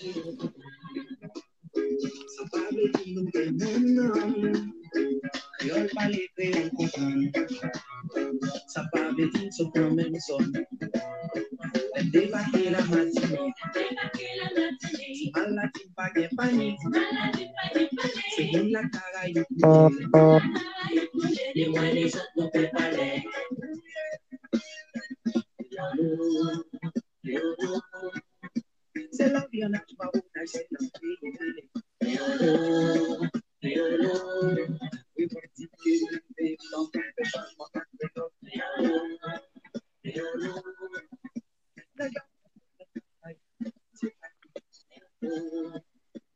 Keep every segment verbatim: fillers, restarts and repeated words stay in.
Sa pa vle di nou gen menm nanm. Kreyòl pale, kreyòl konprann. Sa pa vle di n sot nan menm zòn. Lè m debake Lamatinik, ti mal la di m pa gen panik. Se moun Lakarayib nou ye. Ni mwen ni zòt nou pe pale. Se lavi an aksyon, pa wotaj, se nan peyi n ale. Kreyòl, kreyòl, revandike, leve, flanke, fè chanjman ak kreyòl. Kreyòl, kreyòl, nèg la, se pa kreyòl,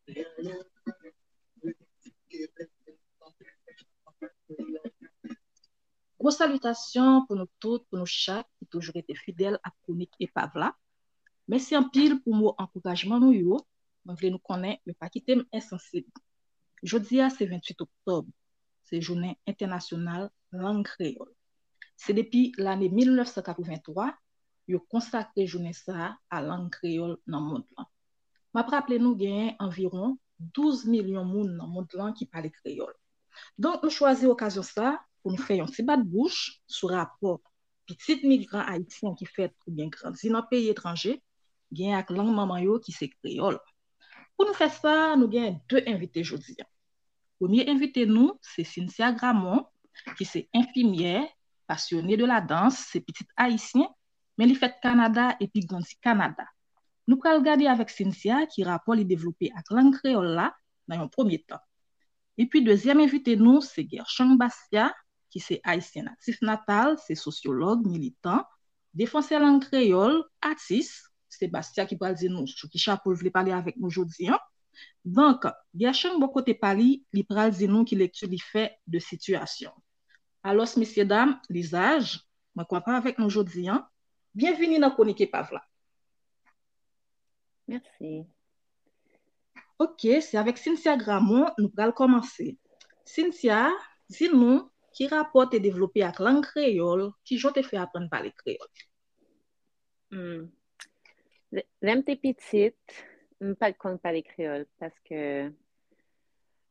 kreyòl, revandike, leve, flanke, fè chanjman ak kreyòl. Gwo salitasyon pou nou tout, pou nou chak ki toujou rete fidèl ak kwonik Epav la. Mèsi anpil pou mo ankourajman nou yo. Mwen vle nou konnen yo pa kite m ensansib. Jodi a se venntuit oktòb. Se jounen entènasyonal lang kreyòl. Se depi lane mil nèf san katrevenntwa yo konsakre jounen sa a a lang kreyòl nan mond lan. M ap raple nou genyen anviwon douz milyon moun nan mond lan ki pale kreyòl. Donk, nou chwazi okazyon sa a pou nou fè yon ti bat bouch sou rapò pitit migran ayisyen ki fèt oubyen grandi nan peyi etranje genyen ak lang manman yo ki se kreyòl. Pou nou fè sa, nou genyen de envite jodi a. Premye envite nou, se Cynthia Gramont, ki se enfimyè, pasyone de la dans, se pitit ayisyen, men li fèt Kanada epi grandi Kanada. Nou pral gade avèk Cynthia ki rapò li devlope ak lang kreyòl la nan yon premye tan. Epi dezyèm envite nou, se Gershang Bastia, ki se ayisyen natif natal, se sosyològ, militan, defansè lang kreyòl, atis. Se Bastia ki pral di nou sou ki chapo l vle pale avèk nou jodi a. Donk, Gershang bò kote pa li, li pral di nou ki lekti li fè de sitiyasyon. Alòs, mesyedam, lizaj, mwen kontan avèk nou jodi a. Byenvini nan Kwonik Epav la. Mèsi. Ok, se avèk Cynthia Gramont nou pral kòmanse. Cynthia, di nou, ki rapò te devlope ak lang kreyòl, kijan w te fè aprann pale kreyòl? Hmm. Lè, lè m te pitit, m pa t konn pale kreyòl paske,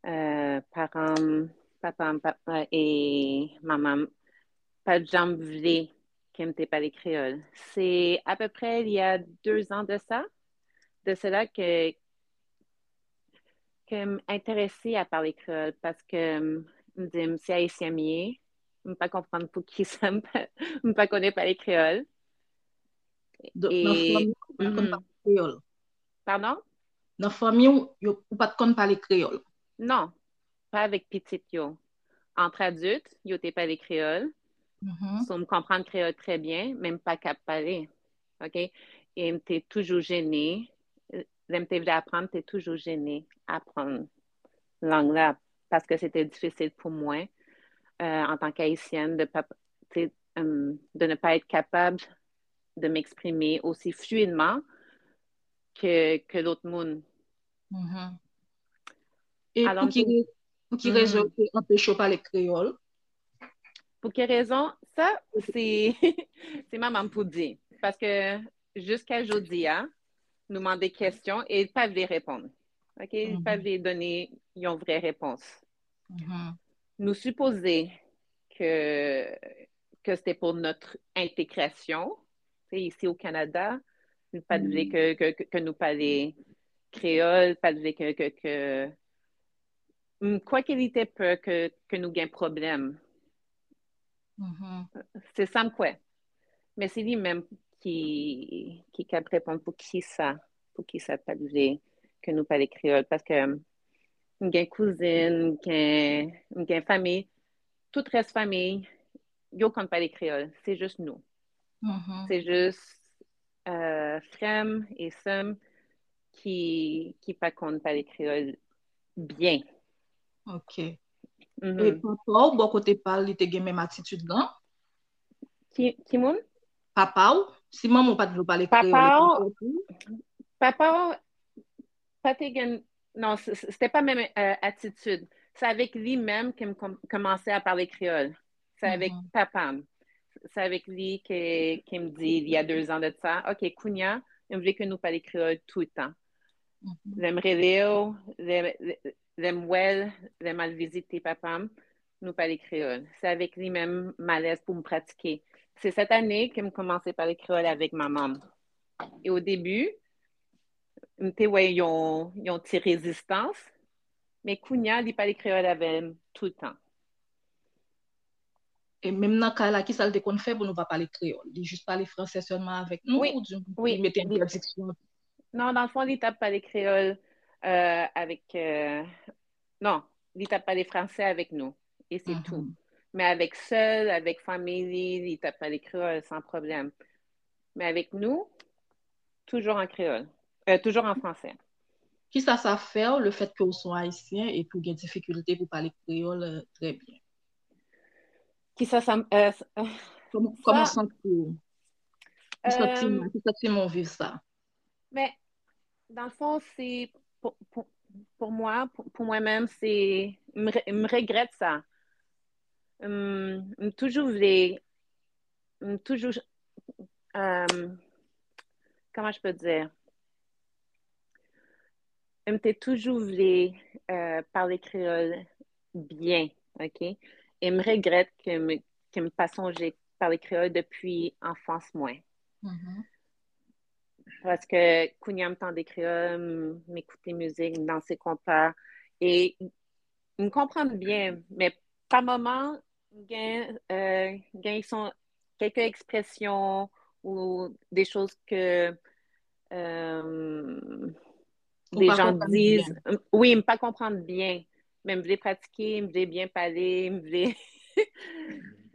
euh, paran m, papa m, papa e manman m pa t janm vle ke m te pale kreyòl. Se apeprè il y a deux ans de ça, de cela que, que m enterese a pale kreyòl paske m, m di m se ayisyen m ye, m pa konprann poukisa m pa, m pa konnen pale kreyòl. Donk, nan fanmi w, ou pa t konn pale kreyòl? Pardon? Nan fanmi w, yo, ou pa t konn pale kreyòl? Non, pa avèk pitit yo. Entre adultes, yo te pale kreyòl. Mhm. So, m konprann kreyòl trè byen, men m pa kab pale. Ok? E m te toujou jene. Lè m te vle aprann, m te toujou jene aprann lang la, paske se te difisil pou mwen, euh, en tant qu'Haïtienne, de pa, te, euh, de ne pas être capable de m'exprimer aussi fluidement que, que l'autre monde. Mhm. E pou ki, pou ki rezon te anpeche w pale kreyòl? Pou ki rezon? Sa, se, se manman m pou di. Paske jiska jodi a, nou mande kesyon e l pa vle reponn. Ok? L pa vle done yon vrè repons. Mhm. Nou sipoze ke, ke se te pou notre intégration. Se isi o Kanada, nou pa t vle ke, ke, ke, ke nou pale kreyòl, pa t vle ke, ke, ke, m kwè ke li te pè ke, ke nou gen pwoblèm. Mhm. Se sa m kwè. Men se li menm ki, ki kab reponn pou kisa, pou kisa l pa t vle ke nou pale kreyòl. Paske m gen kouzin, m gen, m gen fanmi, tout rès fanmi, yo konn pale kreyòl. Se jis nou. Mhm. Se jis, euh, frè m e sè m ki, ki pa konn pale kreyòl byen. Ok. Mhm. E papa w, bò kote pa l, li te gen menm atitid lan? Ki, ki moun? Papa w? Si manman w pa t vle w pale kreyòl, e papa w, papa w pa te gen, non, se, se, se te pa menm, euh, atitid. Se avèk li menm ke m kòm-, kòmanse a pale kreyòl. Se avèk papa m. Se avèk li ke, ke m di, il y a deux ans de ça, ok, kounye a, m vle ke nou pale kreyòl toutan. Lè m rele w, lè, lè, lè m wè l, lè m al vizite papa m, nou pale kreyòl. Se avèk li menm m alèz pou m pratike. Se sèt ane ke m kòmanse pale kreyòl avèk manman m. E o debi, m te wè yon, yon ti rezistans, men kounye a, li pale kreyòl avè m toutan. E menm nan kay la, kisa l te konn fè pou nou pa pale kreyòl? Li jis pale fransè sèlman avèk nou, wi, oubyen li mete entèdiksyon? Non, nan fon, li t ap pale kreyòl euh, avèk euh, non, li t ap pale fransè avèk nou, e se tou. Men avèk sè l, avèk fanmi li, li t ap pale kreyòl san pwoblèm. Men avèk nou, toujou an kreyòl, euh, toujou an fransè. Kisa sa fè w, le fèt ke w se yon ayisyen epi w gen difikilte pou pale kreyòl euh, trè byen? Kisa sa euh, Kòman w santi w? Ki santiman, ki santiman w viv sa? Men, nan fon, se pou, pou, pou mwen, pou, pou mwen menm, se m, re- m regrèt sa. M, m toujou vle, m toujou, euh, comment je peux dire? M te toujou vle euh, pale kreyòl byen, ok? E m regrèt ke m, ke m pa sonje pale kreyòl depi anfans mwen. Paske kounye a m tande kreyòl, m, m ekoute mizik, m danse konpa, e m konprann byen, men pa moman, m gen, euh, gen son, kèlke ekspresyon ou de choz ke euh, Ou de pa jan konprann di, byen. Wi, m pa konprann byen, men m vle pratike, m vle byen pale, m vle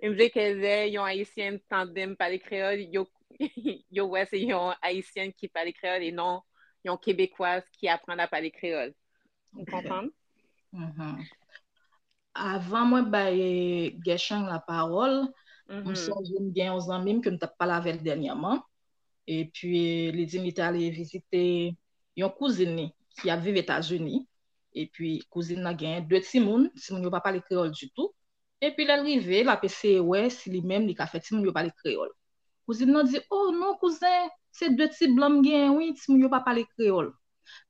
m vle ke lè yon ayisyen tande m pale kreyòl, yo yo wè se yon ayisyen ki pale kreyòl e non yon kebekwaz ki aprann a pale kreyòl. Ou konprann? Avan mwen bay Gershang lapawòl, m sonje m gen yon zanmi m ke m t ap pale avè l dènyèman. Epi li di m li te ale vizite yon kouzin li ki ap viv Etazini. Epi kouzin nan gen de timoun, timoun yo pa pale kreyòl ditou. Epi lè l rive, l ap eseye wè si li menm li ka fè timoun yo pale kreyòl. Kouzin nan di, "Oh non, kouzen, se de ti blan m genyen, wi, timoun yo pa pale kreyòl."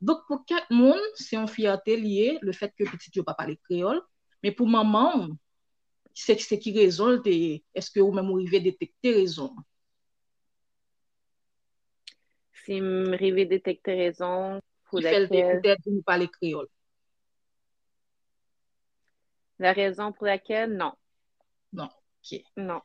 Donk, pou kèk moun, se yon fyète li ye, le fèt ke pitit yo pa pale kreyòl. Men pou manman w, se, se ki rezon l te ye? Èske ou menm ou rive detekte rezon an? Si m rive detekte rezon pou Ki fè l te lèkèl entèdi nou pale kreyòl? La raison pour laquelle, non. Non. Ok. Non.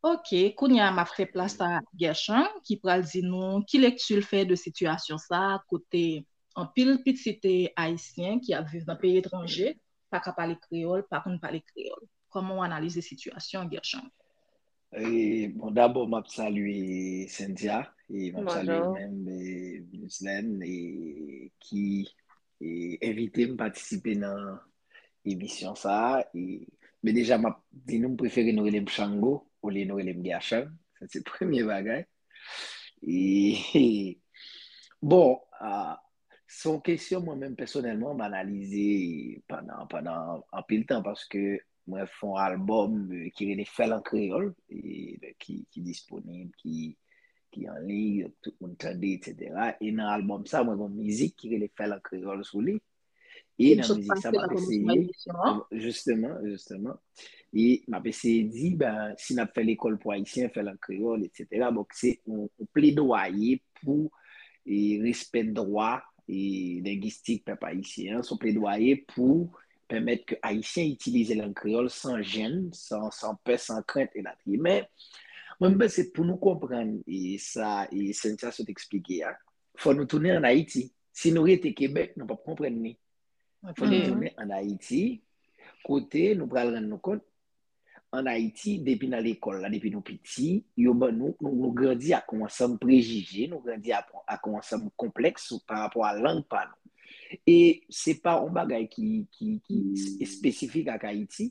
Ok, kounye a m ap fè plas a Gershang ki pral di nou ki lekti l fè de sitiyasyon sa a, kote anpil pitit ayisyen ki ap viv nan peyi etranje pa ka pale kreyòl, pa konn pale kreyòl. Kòman w analize sitiyasyon an, Gershang? E, bon, dabò, m ap salye Cynthia, e m ap salye Bonjou. Menm, e, Mislaine, e, ki e, envite m patisipe nan emisyon sa a. E, men deja, m ap di nou, m prefere nou rele m Shango olye nou rele m Gershang. Sa se premye bagay. E, bon, a, se yon kesyon mwen menm pèsonèlman m analize pandan, pandan anpil tan paske mwen fè yon albòm e, ki rele Fè l an kreyòl, e, ki, ki disponib, ki, ki an liy, tout moun tande, etsetera. E nan albòm sa, mwen gen yon mizik ki rele Fè l an kreyòl sou li. E Ki m nan sot mizik sa, pase m nan ap kòmansman eseye, emisyon an. Jisteman, jisteman. E m ap eseye di, ben, si n ap fè lekòl pou Ayisyen, fè l an kreyòl, etsetera. Donk, se yon, yon pledwaye pou e, respè dwa e, lengistik pèp ayisyen an, se yon pledwaye pou pèmèt ke Ayisyen itilize lang kreyòl san jenn, san, san pè, san krent, elatriye. Men, mwen, m panse pou nou konprann e, sa e, Cynthia sot eksplike a, fò nou tounen ann Ayiti. Si nou rete Kebèk, nou p ap konprann li. Fò nou Ok. tounen ann Ayiti, kote nou pral rann nou kont, ann Ayiti, depi nan lekòl la, depi nou piti, yo ban nou, nou, nou grandi ak yon ansanm prejije, nou grandi ak, ak yon ansanm konplèks sou, pa rapò a lang pa nou. E se pa yon bagay ki, ki, ki espesifik ak Ayiti,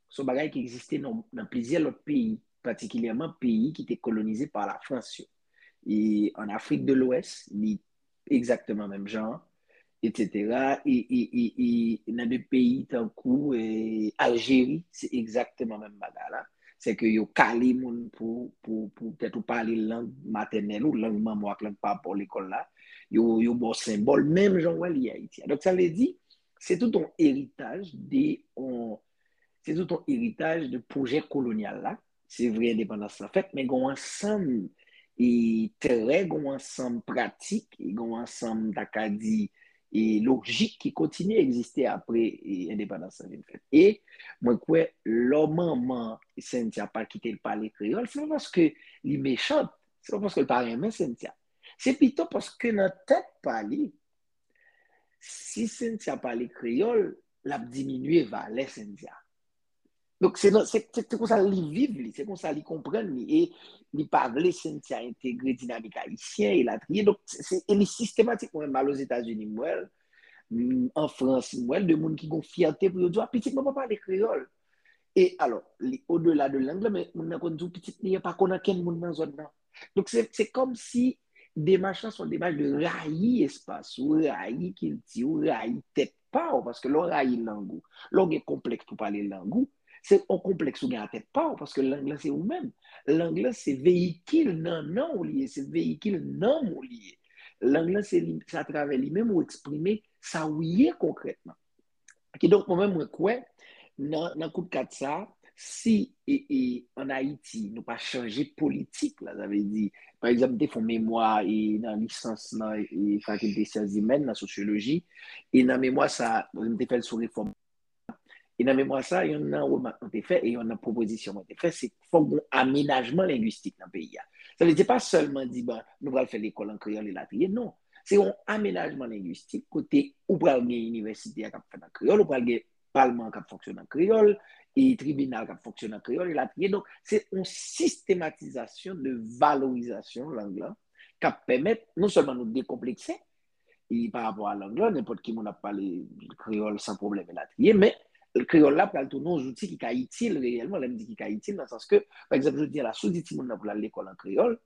se yon bagay ki egziste nan, nan plizyè lòt peyi, patikilyèman peyi ki te kolonize pa Lafrans yo. E ann Afrik de Lwès, li egzakteman menm jan an, etsetera. E, e, e, e nan de peyi tankou e, Aljeri, se egzakteman menm bagay la. Se ke yo kale moun pou, pou, pou petèt ou pale lang matènèl ou, lang manman w ak lang papa w lekòl la. Yo, yo ba w senbòl, menm jan w wè li Ayiti a. Donk, sa vle di, se tout yon eritaj de, yon, se tout yon eritaj de pwojè kolonyal la. Se vre endepandans lan fèt, men gen yon ansanm e trè, gen yon ansanm pratik, e gen yon ansanm, ta ka di, e lojik ki kontinye egziste apre e endepandans lan vin fèt. E mwen kwè, lè manman Cynthia pa kite l pale kreyòl, se pa paske li mechant, se pa paske l pa renmen Cynthia. Se pito paske nan tèt pa li, si Cynthia pale kreyòl, l ap diminye valè Cynthia. Donk, se, se, se, se konsa li viv li, se konsa li konprann li, e li pa vle Cynthia entegre dinamik ayisyen, elatriye. Donk, se, se, e li sistematik, mwen menm, al Ozetazini, m wè l, m, an Frans, m wè l, de moun ki gon fyète pou yo di, a, pitit mwen pa pale kreyòl. E alò, li odela de lang lan, men moun nan konn di w pitit li an pa konn ankenn moun nan zòn nan. Donk, se, se kòmsi demach lan se yon demach de rayi espas ou, rayi kilti ou, rayi tèt pa w, paske lè w rayi lang ou, lè w gen konplèks pou pale lang ou, se yon konplèks ou gen a tèt pa w, paske lang lan se ou menm. Lang lan se veyikil nannan w li ye, se veyikil nanm ou li ye. Lang lan se li, se atravè li menm ou eksprime sa ou ye konkrètman. Kidonk, mwen menm, mwen kwè, nan, nan kout kat sa, si e, e, ann Ayiti, nou pa chanje politik la, sa vle di, pa egzanp, m te fè yon memwa e, nan lisans nan e, fakilte syans imèn, nan sosyoloji, e nan memwa sa, m te fè l sou refòm. E nan memwa sa, yonn nan remak mwen te fè, e yonn nan pwopozisyon mwen te fè, se fòk gen amenajman lengwistik nan peyi a. Sa vle di, se pa sèlman di, bon, nou pral fè lekòl an kreyòl elatriye, non. Se yon amenajman lengwistik kote ou pral gen inivèsite a k ap fèt an kreyòl, ou pral gen palman k ap fonksyone an kreyòl, e tribinal k ap fonksyone an kreyòl, elatriye. Donk, se yon sistematizasyon de valorizasyon lang lan k ap pèmèt non sèlman nou dekonplekse, e pa rapò a lang lan, nenpòt ki moun ap pale kreyòl san pwoblèm, elatriye, men kreyòl la pral tounen yon zouti ki ka itil reyèlman, lè m di ki ka itil, nan sans ke, pa egzanp, jodi a la, si w di timoun nan pou l al lekòl an kreyòl,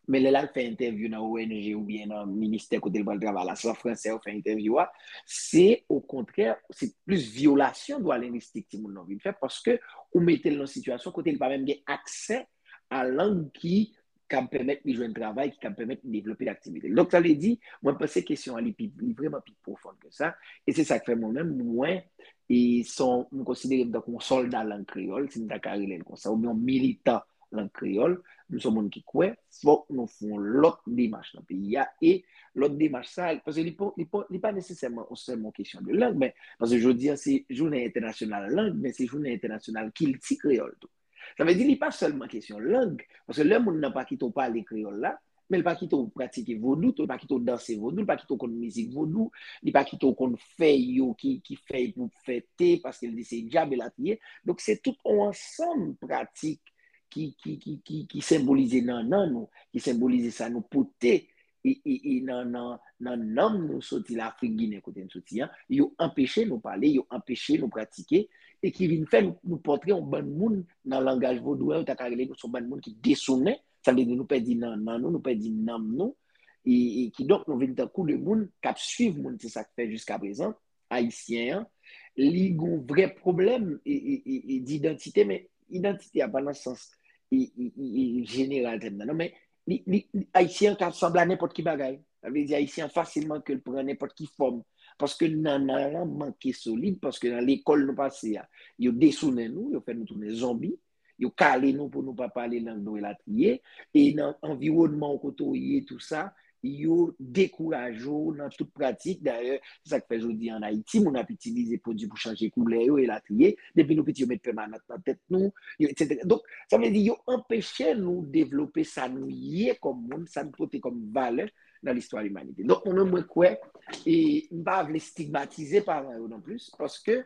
men lè l al fè entèvyou nan O N G oubyen nan ministè kote l pral travay la, se an fransè yo fè entèvyou a, se okontrè, se plis vyolasyon dwa lengwistik timoun nan vin fè, paske ou mete l nan sitiyasyon kote li pa menm gen aksè a lang ki kab pèmèt li jwenn travay, ki kab pèmèt li devlope aktivite l. Donk, sa vle di, mwen panse kesyon an, li pi, li vrèman pi pwofon ke sa, e se sa k fè mwen menm, mwen, e son, m konsidere m tankou yon sòlda lang kreyòl, si m ta ka rele l konsa, oubyen yon militan lang kreyòl, m se yon moun ki kwè, fòk nou fè yon lòt demach nan peyi a, e lòt demach sa, paske li pa, li pa, li pa nesesèman yon sèlman kesyon de lang, men, paske jodi a, se jounen entènasyonal lang, men se jounen entènasyonal kilti kreyòl tou. Sa vle di, li pa sèlman kesyon lang, paske lè moun nan pa kite w pale kreyòl la, men l pa kite w pratike vodou tou, l pa kite w danse vodou, l pa kite w konn mizik vodou, li pa kite w konn fèy yo ki, ki fèy pou fè te, paske l di se dyab elatriye. Donk, se tout yon ansanm pratik ki, ki, ki, ki, ki senbolize nannan nou, ki senbolize sa nou pote e, e, e nan, nan, nan nanm nou soti Lafrik Ginen kote n soti an, yo anpeche nou pale, yo anpeche nou pratike, e ki vin fè nou, nou pòtre yon bann moun nan langaj vodou an, yo ta ka rele nou se yon bann moun ki desounen, sa vle di nou pèdi nannan nou, nou pèdi nanm nou, e, e kidonk nou vin tankou de moun k ap swiv moun, se sa k fè jiskaprezan, ayisyen an, li gen yon vrè pwoblèm e, e, e, e didantite, men idantite a pa nan sans e, e, e, e jeneral tèm nan, non, men li, li, li, ayisyen an ka sanble a nenpòt ki bagay. Sa vle di ayisyen an fasilman ke l pran nenpòt ki fòm. Paske nannan lan manke solid, paske nan lekòl nou pase a, yo desounen nou, yo fè nou tounen zonbi, yo kale nou pou nou pa pale lang nou elatriye, e nan anviwònman w kote w ye, tou sa, yo dekouraje w nan tout pratik. Dayè, se sa k fè jodi an Ayiti, moun ap itilize pwodui pou chanje koulè yo, elatriye. Depi nou piti, yo met pèmanant nan tèt nou, yo, etsetera. Donk, sa vle di, yo anpeche nou devlope sa nou ye kòm moun, sa n pote kòm valè nan listwa limanite. Donk, mwen menm, mwen kwè, e m pa vle stigmatize paran yo non plis, paske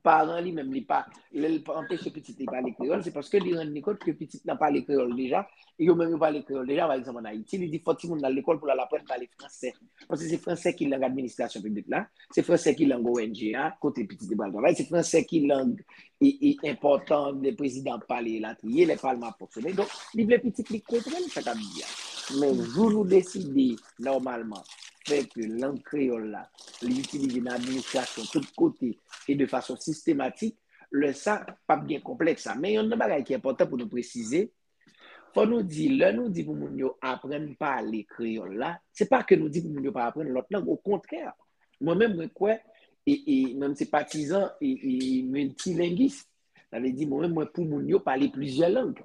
paran li menm, li pa, lè l pa anpeche pitit li pale kreyòl, se paske li rann li kont ke pitit lan pale kreyòl deja, e yo menm yo pale kreyòl deja, pa egzanp, ann Ayiti, li di fò timoun nan lekòl pou l al aprann pale fransè. Paske se fransè ki lang administrasyon piblik la, se fransè ki lang O N G a, kote pitit li pral travay, se fransè ki lang e, e enpòtan lè prezidan ap pale elatriye, lè palman ap fonksyone. Donk, li vle pitit li konprann sa k ap di a. Men jou nou deside, nòmalman, fè ke lang kreyòl la, li itilize nan administrasyon tout kote e de fason sistematik, lè sa, p ap gen konplèks sa. Men yonn nan bagay ki enpòtan pou nou presize, Fò nou di, lè nou di pou moun yo aprann pale kreyòl la, se pa ke nou di pou moun yo pa aprann lòt lang, okontrè. Mwen menm, mwen kwè, e, e mwen se patizan e, e miltilengis. Sa vle di, mwen menm, mwen pou moun yo pale plizyè lang.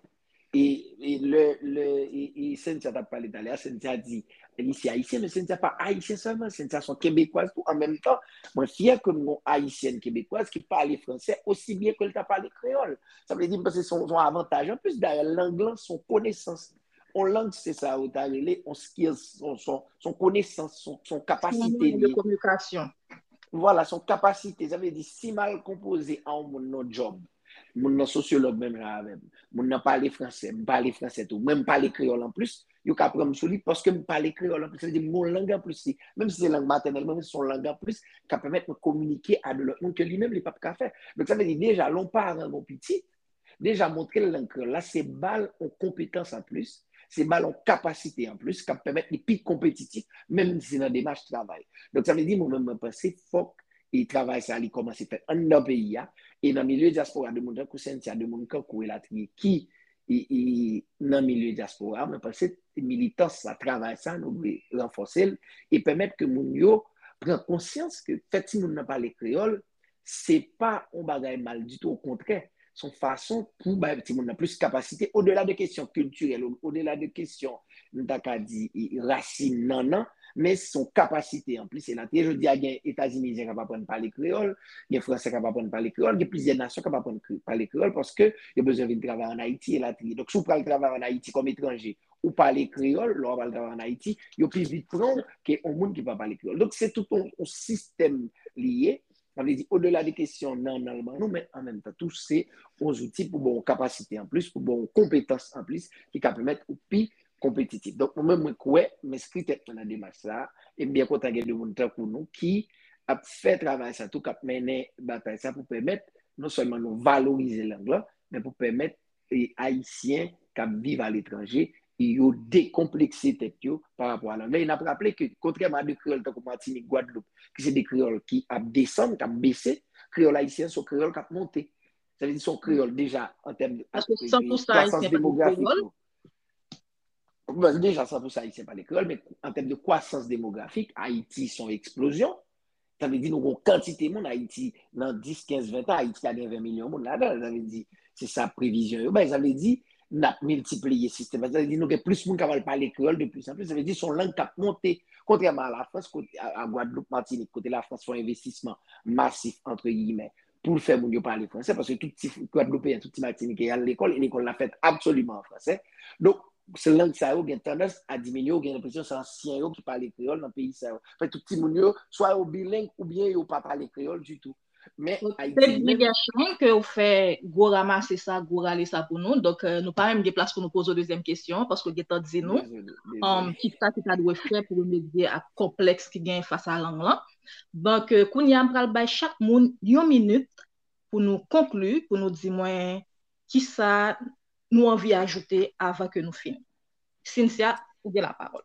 E, e lè, lè e, e Cynthia t ap pale talè a, Cynthia di, li se ayisyen, men Cynthia pa ayisyen sèlman, Cynthia se yon kebekwaz tou. An menm tan, mwen fyè ke m gon ayisyèn kebekwaz ki pale fransè osi byen ke l ta pale kreyòl. Sa vle di, m panse se yon, se yon avantaj anplis. Dayè, lang lan se yon konesans. Yon lang, se sa yo ta rele yon skills, se yon, se yon, se yon konesans, se yon, se yon kapasite li ye. Vwala, se yon kapasite. Sa vle di, si m al konpoze a yon moun nan djòb, moun nan sosyològ menm jan avè m, moun nan pale fransè, m pale fransè tou, mwen m pale kreyòl anplis, yo ka pran m sou li paske m pale kreyòl anplis. Sa vle di, m gon lang anplis li. Menm si se lang matènèl mwen, men se yon lang anplis k ap pèmèt mwen kominike a de lòt moun ke li menm li p ap ka fè. Donk, sa vle di, deja, lè yon paran gon pitit, deja montre l lang kreyòl la, se ba l yon konpetans anplis, se ba l yon kapasite anplis k ap pèmèt li pi konpetitif, menm si se nan demach travay. Donk, sa vle di, mwen menm, mwen panse fòk e travay sa li kòmanse fèt anndan peyi a, e nan milye dyaspora, de moun tankou Cynthia, de moun kankou elatriye ki e, e, nan milye dyaspora, mwen panse militans sa, travay sa, nou dwe ranfòse l e pèmèt ke moun yo pran konsyans ke fè timoun nan pale kreyòl, se pa yon bagay mal ditou, okontrè, se yon fason pou bay timoun nan plis kapasite, odela de kesyon kiltirèl, odela de kesyon, nou ta ka di, e, rasin nannan, men se yon kapasite anplis. E la, jodi a, gen Etazinizyen k ap aprann pale kreyòl, gen Fransè k ap aprann pale kreyòl, gen plizyè nasyon k ap aprann kre- pale kreyòl paske yo bezwen vin travay ann Ayiti, elatriye. Donk, si w pral travay ann Ayiti kòm etranje, ou pale kreyòl, lè w ap al travay ann Ayiti, yo pi vit pran w ke yon moun ki pa pale kreyòl. Donk, se tout yon, yon sistèm li ye. Sa vle di, odela de kesyon nannan l ban nou, men an menm tan tou, se yon zouti pou ba w yon kapasite anplis, pou ba w yon konpetans anplis ki ka pèmèt ou pi konpetitif. Donk, mwen menm, mwen kwè, m enskri tèt mwen nan demach sa a, e m byen kontan gen de moun tankou nou ki ap fè travay sa tou, k ap mennen batay sa pou pèmèt non sèlman nou valorize lang lan, men pou pèmèt e, Ayisyen k ap viv aletranje, e yo dekonplekse tèt yo pa rapò a lang lan. E n ap raple ke, kontrèman a de kreyòl tankou Matinik, Gwadloup, ki se de kreyòl ki ap desann, k ap bese, kreyòl ayisyen se yon kreyòl k ap monte. Sa vle di se yon kreyòl deja an tèm de, paske san pou san ayisyen pale kreyòl. Bon, deja san pou san ayisyen pale kreyòl, men an tèm de kwasans demografik, Ayiti se yon eksplozyon. Sa vle di nou gon kantite moun Ayiti, nan dis, kenz, ven tan, Ayiti ka gen ven milyon moun ladan l. Sa vle di, se sa previzyon yo bay. Sa vle di, n ap miltipliye sistèm. Sa vle di, nou gen plis moun k ap al pale kreyòl de plis an plis. Sa vle di, se yon lang k ap monte. Kontrèman a Lafrans, kote, a, a Gwadloup, Matinik, kote Lafrans fè yon envestisman masif, antre giyimè, pou l fè moun yo pale fransè, paske tout ti Gwadloupeyen, tout ti Matinitjè al lekòl, e lekòl la fèt absoliman an fransè. Donk, se lang sa yo gen tandans a diminye, ou gen enpresyon se ansyen yo ki pale kreyòl nan peyi sa yo. Fè tout timoun yo, swa yo bileng, oubyen yo pa pale kreyòl ditou. Men Ayiti li menm, gen chan ke ou fè gwo ramase sa, gwo rale sa pou nou. Donk, euh, nou pa menm gen plas pou nou poze w dezyèm kesyon, paske w gentan di nou, dezole, dezole. Um, kisa ki ta dwe fè pou remedye ak konplèks ki gen fas a lang lan. Donk, euh, kounye a, m pral bay chak moun yon minit pou nou konkli, pou nou di mwen kisa nou anvi ajoute avan ke nou fini. Cynthia, ou gen lapawòl.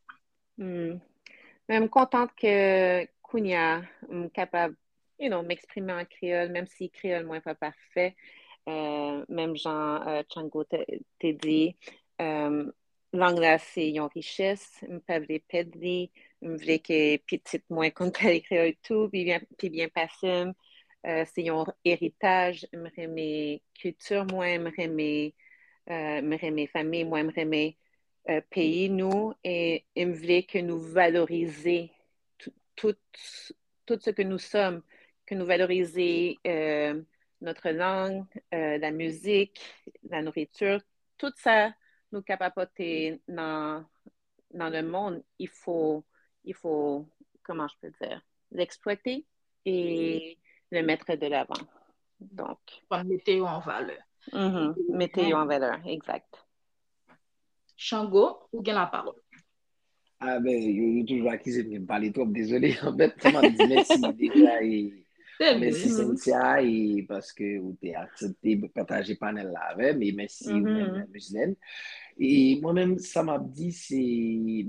Hmm. Men m kontan ke kounye a, m kapab, you know, m eksprime an kreyòl, menm si kreyòl mwen pa pafè. Euh, menm jan, euh, Chango te, te di, euh, lang la se yon richès, m pa vle pèd li, m vle ke pitit mwen konn pale kreyòl tou, pi byen, pi byen pase m. Euh, se yon eritaj, m renmen kilti mwen, m renmen, euh, m renmen fanmi mwen, m renmen, euh, peyi nou, e, e m vle ke nou valorize tout, tout, tout ce que nous sommes, que nous valoriser, euh, notre langue, euh, la musique, la nourriture, tout ça nou kapab pote nan, dans le monde, il faut, il faut, comment je peux dire, l'exploiter et le mettre de l'avant. Donc, fò n mete yo an valè. Mhm, mete yo an valè, exact. Chango, ou gen lapawòl. Ah ben, yo, yo toujou akize m ke m pale twòp, dezole. Anfèt, sa m ap di mèsi deja, e mèsi Cynthia, e paske ou te aksepte pataje panèl la avè m, e mèsi ou menm, Mislaine. E mwen menm, sa m ap di, se,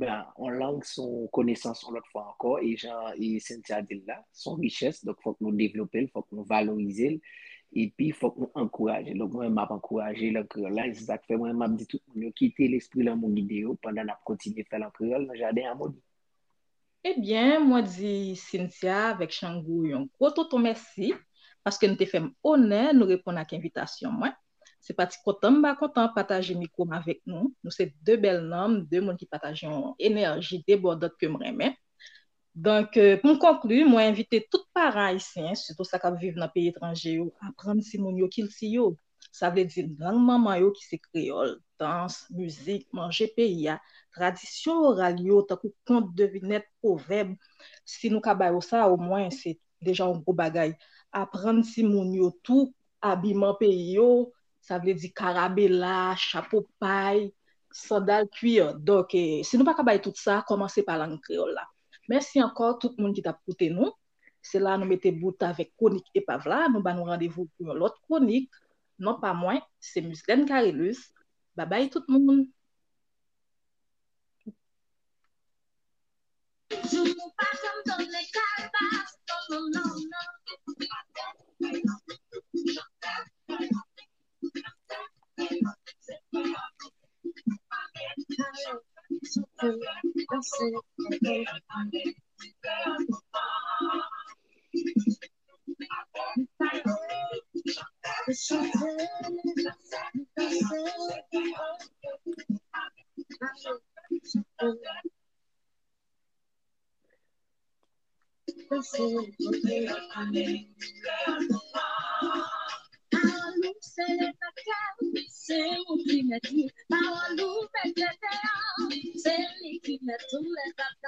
ben, yon lang se yon konesans, yon lòt fwa ankò, e jan e Cynthia di l la, se yon richès, donk fòk nou devlope l, fòk nou valorize l, Epi, fòk nou ankouraje. Donk, mwen, m ap ankouraje l an kreyòl la. E se sa k fè mwen, m ap di tout moun yo kite lespri lanmou gide yo pandan n ap kontinye fè l an kreyòl nan Jaden Amoni. Ebyen, mwen di Cynthia avèk Chango yon gwo tonton mèsi paske nou te fè m onè nou reponn ak envitasyon mwen. Se pa ti kontan m pa kontan pataje mikwo m avèk nou. Nou se de bèl nanm, de moun ki pataje yon enèji debòdant ke m renmen. Donk, euh, pou m konkli, mwen envite tout paran ayisyen, sitou sa k ap viv nan peyi etranje yo, aprann timoun yo kilti yo. Sa vle di lang manman yo ki se kreyòl, dans, mizik, manje peyi a, tradisyon oral yo tankou kont, devinèt, pwovèb. Si nou ka ba yo sa, omwen se deja yon gwo bagay. Aprann timoun yo tou abiman peyi yo, sa vle di karabela, chapo pay, sandal kuir. Donk, eh, si nou pa ka bay tout sa, kòmanse pa lang kreyòl la. Mèsi ankò tout moun ki t ap koute nou. Se la nou mete bout avèk kwonik epav la. Nou ba nou randevou pou yon lòt kwonik. Non pa mwen, se Mislène Carilus. Babay tout moun. Pawòl ou se levanjil, se ou ki mèt li. Pawòl ou mete deyò, se li ki mèt tou lèzòt.